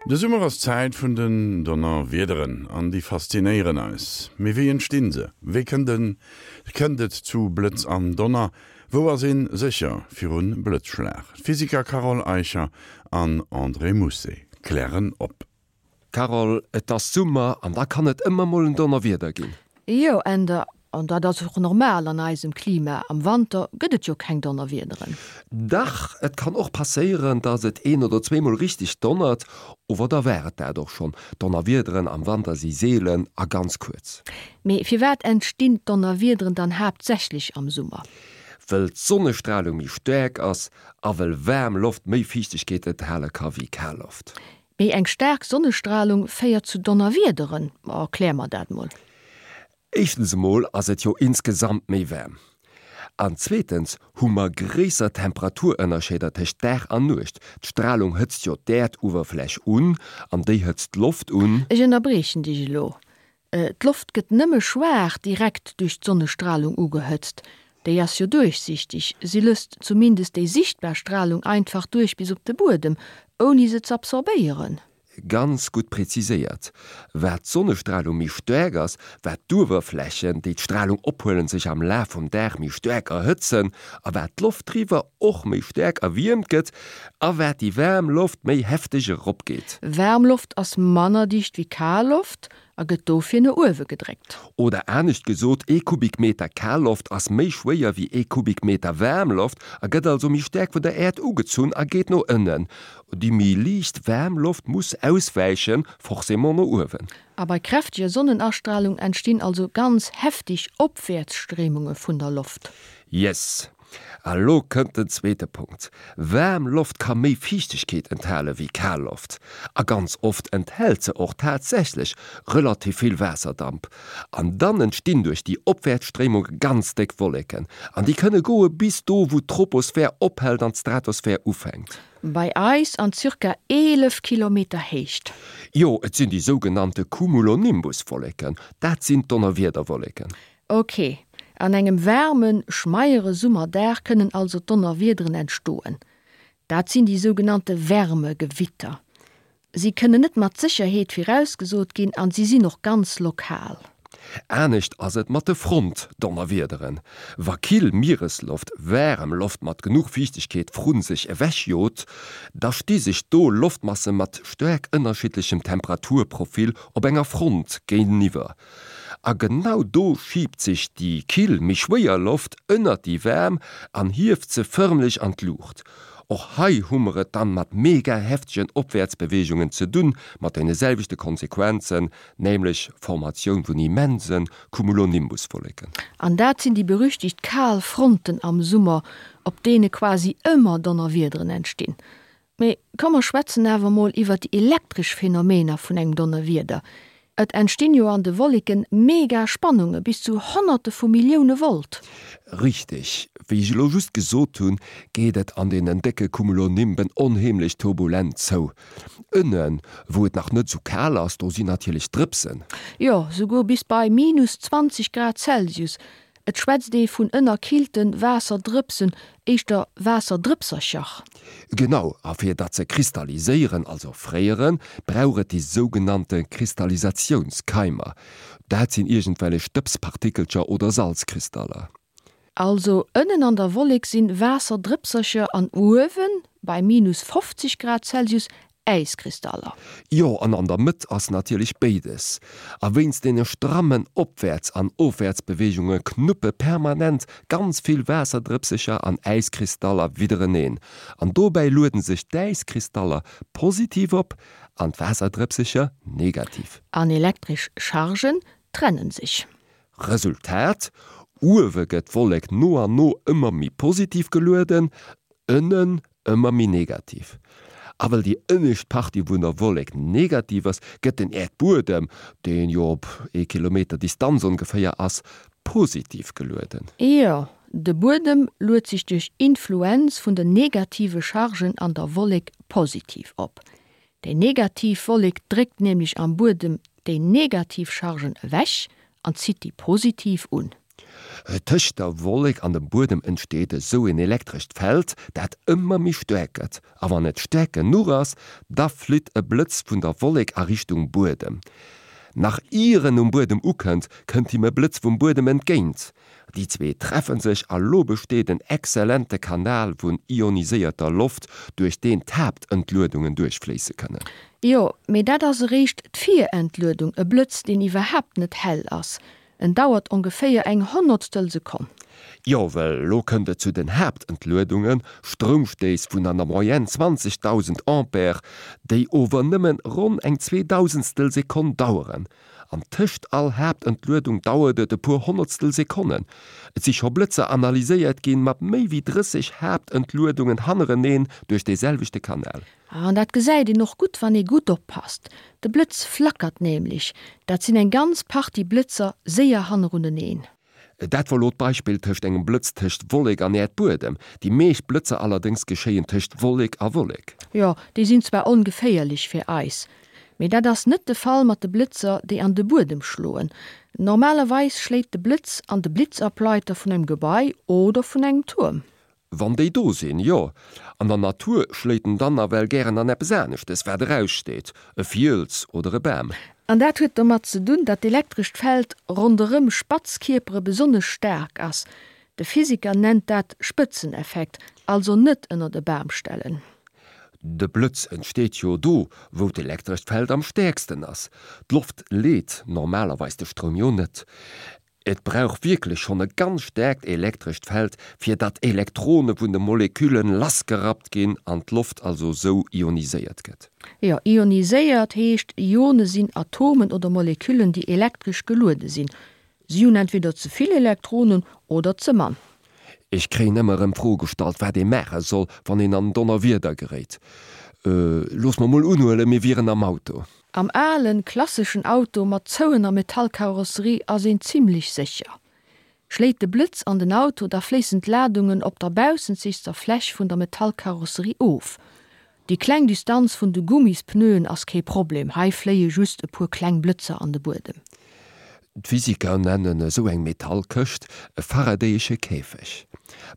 De Summer ass d'Zäit vun den Donnerwiederen an déi faszinéieren eis. Mee wéi entstinn se? Wéi kënnt en kënnt et zu Blëtz an Donner? Wou ass een sécher virun Blëtzschlag? D'Physiker Carole Eicher an André Mousset klären op. Carole, Et ass Summer an da kann et ëmmer mol en Donnerwieder ginn. Jo, Änder, an dat ass och normal an eisem Klima. Am Wanter gëtt et jo keng Donnerwiederen. Dach, et kann och passéieren, dass et een oder zweemol richteg donnert, ower da war et dat och schonn. Donnerwiederen am Wanter si seelen a ganz kuerz. Mee firwat entstinn d'Donnerwiederen dann haaptsächlech am Summer? Wëll d'Sonnestralung méi staark ass a wëll waarm Loft méi Fiichtegkeet enthale ka wéi kal Loft. Méi eng staark Sonnestralung féiert zu Donnerwiederen? Erklär mer dat mol. Éischtens emol ass et jo insgesamt méi waarm. An zweetens hu mer gréisser Temperaturënnerscheeder tëscht Dag an Nuecht. D'Stralung hëtzt jo d'Äerduewerfläch un an déi hëtzt d'Loft un. Ech ënnerbriechen dech elo. D'Loft gëtt nëmme schwaach direkt duerch d'Sonnestralung ugehëtzt. Déi ass jo duerchsichteg, si lësst zumindest déi sichtbar Stralung einfach duerch bis op de Buedem, ouni se z'absorbéieren. Ganz gutt präziséiert. Wat d'Sonnestralung méi staark ass, wat d'Uewerflächen, déi d'Stralung ophuelen, sech am Laf vum Dag méi staark erhëtzen a wat d'Loft driwwer och méi staark erwiermt gëtt a wat déi waarm Loft méi hefteg eropgeet. Waarm Loft ass manner dicht wéi kal Loft a gëtt dofir no uewe gedréckt. Oder anescht gesot, ee Kubikmeter Kalloft ass méi schwéier wéi ee Kubikmeter Waarmloft a gëtt also méi staark vun der Äerd ugezunn a geet no ënnen. Déi méi liicht waarm Loft muss auswäichen, forcément no uewen. A bei kräfteger Sonnenastralung entstinn also ganz heftig Opwäertsstréimunge vun der Loft. Yes! A lo kënnt den zweete Punkt, Waarm Loft ka méi Fiichtegkeet enthale wéi kal Loft. A ganz oft enthält se och tatsächlech relativ vill Waasserdamp. An dann entstinn duerch déi Opwäertsstréimunge ganz déck Wolleken. An déi kënne goe bis do, wou d'Troposphär ophält an d'Stratosphär ufänkt. Bei eis an zirka 11 Kilometer Héicht. Jo, et sinn déi sougenannte Cumulonimbuswolleken. Dat sinn d'Donnerwiederwolleken. Ok, an engem waarmen, schmeiere Summerdag kënnen also Donnerwiederen entstoen. Dat sinn déi sougenannte Wärmegewitter. Si kënnen net mat Sécherheet virausgesot ginn an si sinn och ganz lokal. Anescht ass et mat de Frontdonnerwiederen. Wa kill Mieresloft waarem Loft mat genuch Fiichtegkeet vru sech ewech jot, da sti sech do Loftmasse mat staark ënnerschiddlechem Temperaturprofil op enger Front géinteniwwer. A genau do schiibt sech déi kill, méi schwéier Loft ënnert déi waarm an hieft se fërmlech an d'Luucht. Och hei hu mer et dann mat mega heftegen Opwäertsbeweegungen ze dunn, mat deene selwechte Konsequenzen, nämlech Formatioun vun immense Cumulonimbuswolleken. An dat sinn déi berüchtigt kal Fronten am Summer, op deene quasi ëmmer Donnerwiederen entstinn. Mee komm mer schwätzen awer mol iwwert déi elektresch Phänomener vun engem Donnerwieder. Et entstinn jo an de Wolleken mega Spannunge bis zu Honnerte vu Millioune Volt. Richteg, wéi ech elo just gesot hunn, geet et an deenen décke Cumulonimben onheemlech turbulent zou. Ënnen, wou et nach net sou kal ass, do sinn natierlech Drëpsen. Jo, souguer bis bei minus 20 Grad Celsius. Et schwätzt ee vun ënnerkillte Waasserdrëpsen, éischter Waasserdrëpsercher. Genau, a fir datt se kristalliséieren, also fréieren, brauch et déi sougenannte Kristallisatiounskeimer. Dat sinn iergendwellech Stëbspartikelcher oder Salzkristaller. Also ënnen an der Wollek sinn Waasserdrëpsercher an uewen, bei minus 50 Grad Celsius, Äiskristaller. Jo, an an der Mëtt ass natierlech béides. A wéinst deene strammen Opwäerts an Ofwäertsbeweegunge knuppe permanent ganz vill Waasserdrëpsecher an Äiskristaller widdereneen. An dobäi lueden sech d'Äiskristaller positiv op an d'Waasserdrëpsecher negativ. An elektresch Chargen trennen sech. Resultat, Uewe gëtt d'Wollek no an no ëmmer méi positiv gelueden, ënnen ëmmer méi negativ. A well déi ënnescht Partie vun der Wollek negativ ass, gëtt den Äerdbuedem, deen jo op ee Kilometer Distanz ongeféier ass, positiv gelueden. Jo, de Buedem luet sech duerch Influenz vun den negative Chargen an der Wollek positiv op. Déi negativ Wollek dréckt nämlech am Buedem déi negativ Chargen ewech an zitt déi positiv un. Tëscht der Wollek an dem Buedem entsteet esou en elektrescht Feld, dat ëmmer méi staark gëtt. A wann et staark genuch ass, da flitt e Blëtz vun der Wollek a Richtung Buedem. Nach ier en um Buedem ukënnt, kënnt him e Blëtz vum Buedem entgéint. Déi zwee treffe sech a lo besteet en exzellente Kanal vun ioniséierter Loft, duerch deen d'Haaptentluedungen duerchfléisse kënnen. Jo, mee dat ass eréischt d'Virentluedung, e Blëtz, deen iwwerhaapt net hell ass. En dauert ongeféier eng Honnertstel Sekonn. Jo, well lo kënnt et zu den Haaptentluedungen, Stroumstéiss vun an der Moyenne 20.000 Ampere, déi ower nëmmen ronn eng Zweedausendstel Sekonn daueren. An tëscht all Haaptentluedung dauert et e puer Honnertstel Sekonnen. Et si scho Blëtzer analyséiert ginn mat méi wéi 30 Haaptentluedungen hannereneen duerch dee selwechte Kanal. An dat gesäit een och gutt, wann ee gutt oppasst. De Blëtz flackert nämlech, dat sinn eng ganz Partie Blëtzer séier hanneruneneen. Dat wor lo d'Beispill tëscht engem Blëtz tëscht Wollek an Äerdbuedem. Déi meescht Blëtzer allerdéngs geschéien tëscht Wollek a Wollek. Jo, déi sinn zwar ongeféierlech fir eis, mee dat ass net de Fall mat de Blëtzer, déi an de Buedem schloen. Normalerweis schléit de Blëtz an de Blitzableiter vun engem Gebai oder vun engem Tuerm. Wann déi do sinn, jo. An der Natur schléit en dann nawell gären an eppes aneschtes, wat eraussteet, e Fiels oder e Bam. An dat huet domat ze dunn, datt d'elektrescht Feld ronderëm spatz Kierpere besonnesch staark ass. De Physiker nennt dat Spëtzeneffekt, also net ënnert e Bam stellen. De Blëtz entsteet jo do, wou d'elektrescht Feld am stäerksten ass. D'Loft leet normalerweis de Stroum jo net. Et brauch wierklech schonn e ganz staarkt elektrescht Feld, fir datt Elektrone vun de Moleküllen lassgerappt ginn an d'Loft also sou ioniséiert gëtt. Jo, ioniséiert heescht, Ione sinn Atomen oder Moleküllen, déi elektresch geluede sinn. Si hunn entweder ze vill Elektronen oder ze mann. Ech kréien ëmmer erëm d'Fro gestallt, wat ee maache soll, wann een an Donnerwieder geréit. Looss mer mol unhuelen, mir wieren am Auto. Am alen, klasseschen Auto mat zouener Metallkarosserie ass een zimlech sécher. Schléit de Blëtz an den Auto, da fléissen d'Ladungen op der baussenzegster Fläch vun der Metallkarosserie of. Déi kleng Distanz vun de Gummispneuen ass kee Problem, hei fléie just e puer kleng Blëtzer an de Buedem. D'Physiker nennen esou eng Metallkëscht e faradayesche Käfeg.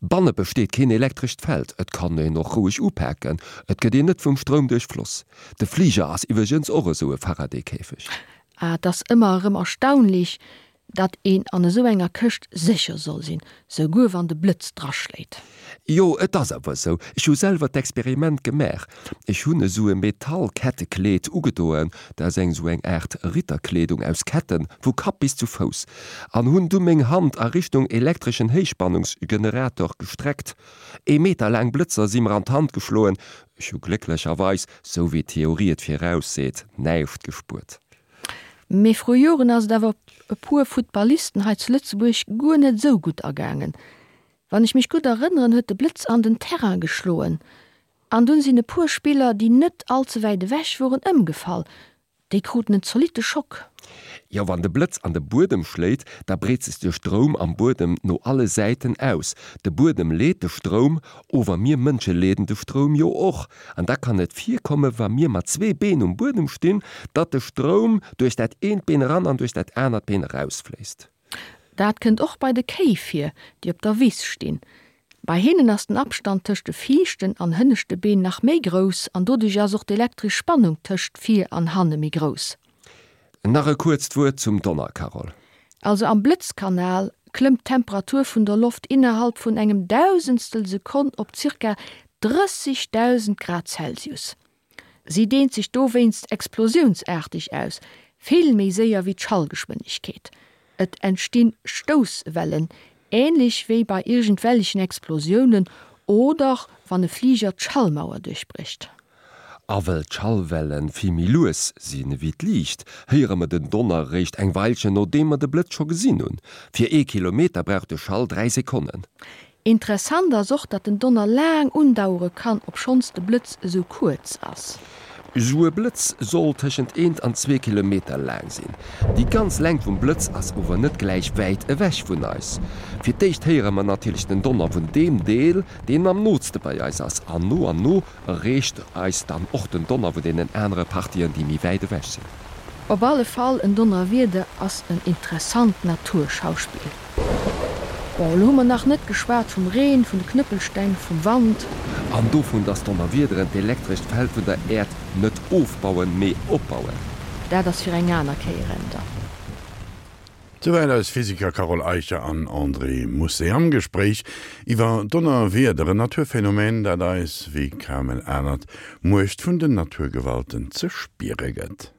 Banne besteet keen elektrescht Feld, et kann een och roueg upaken, et gëtt een net vum Stroum duerchfloss. De Fliger ass iwwregens och esou e Faraday-Käfeg. Et ass ëmmer erëm erstaunlich, Datt een an esou enger Këscht sécher soll sinn, souguer wann de Blëtz draschléit. Jo, et ass awer esou. Ech hu selwer d'Experiment gemaach. Ech hunn esou e Metallkettekleed ugedoen, dat ass eng esou eng Aart Ritterkleedung aus Ketten, vu Kapp bis zu Fouss, an hunn du meng Hand a Richtung elektreschen Héichspannungsgenerator gestreckt. Ee Meter laang Blëtzer si mer an d'Hand geschloen. Ech hu glécklecherweis, sou wéi d'Theorie et virausseet, näischt gespuert. Mee vru Joren ass et awer e puer Futtballisten hei zu Lëtzebuerg guer net esou gutt ergaangen. Wann ech mech gutt erënneren, huet de Blëtz an den Terrain geschloen an dunn sinn e puer Spiller, déi net all ze wäit ewech woren, ëmgefall. Déi kruten en zolitte Schock. Jo, wann de Blëtz an de Buedem schléit, da breet sech de Stroum am Buedem no alle Säiten aus. De Buedem leet de Stroum, ower mir Mënsche leeden de Stroum jo och. An da kann et virkomme wa mir mat zwee Been um Buedem stinn, datt de Stroum duerch dat eent Been eran an duerch dat anert Been erausfléisst. Dat kënnt och bei de Kéi vir, déi op der Wiss stinn. Bei hinnen ass den Abstand tëscht de viischten an hënneschte Been nach méi grouss an doduerch ass och d'elektresch Spannung tëscht vir an hanne méi grouss. Nach e kuerzt Wuert zum Donner, Carole. Also am Blëtzkanal klëmmt d'Temperatur vun der Loft innerhalb vun engem Dausendstel Sekonn op zirka 30.000 Grad Celsius. Si deent sech dowéinst explosiounsaarteg aus, vill méi séier wéi d'Schallgeschwindegkeet. Et entstinn Stousswellen, änlech wéi bei iergendwellechen Explosiounen oder wann e Fliger d'Schallmauer duerchbrécht. A well d'Schallwelle vill méi lues sinn ewéi d'Liicht, héiere mer den Donner eréischt eng Weilchen nodeem mer de Blëtz scho gesinn hunn. Fir ee Kilometer brauch de Schall 3 Sekonnen. Interessant ass och, datt den Donner laang undauere kann, obschonns de Blëtz esou kuerz ass. Esou e Blëtz soll tëschent eent an zwee Kilometer laang sinn. Déi ganz Längt vum Blëtz ass ower net gläich wäit ewech vun eis. Fir d'éischt héiere mer natierlech den Donner vun deem Deel, deen am nootste bei eis ass, an no an no Erreecht eis dann och den Donner vun deenen anere Partien, déi méi wäit ewech sinn. Op alle Fall, en Donnerwieder ass en interessant Naturschauspill. Bon, elo hu mer nach net geschwat vum Reen, vun de Knëppelsteng, vum Wand. An dovun, dass d'Donnerwiederen d'elektrescht Feld vun der Äerd net ofbauen, mee opbauen. Dat ass fir eng aner Kéier. Änder. Souwäit eis Physiker Carole Eicher an André Mousset am Gespréich iwwer Donnerwieder, en Naturphänomen, dat eis wéi kaum en anert d'Muecht vun den Naturgewalten ze spiere gëtt.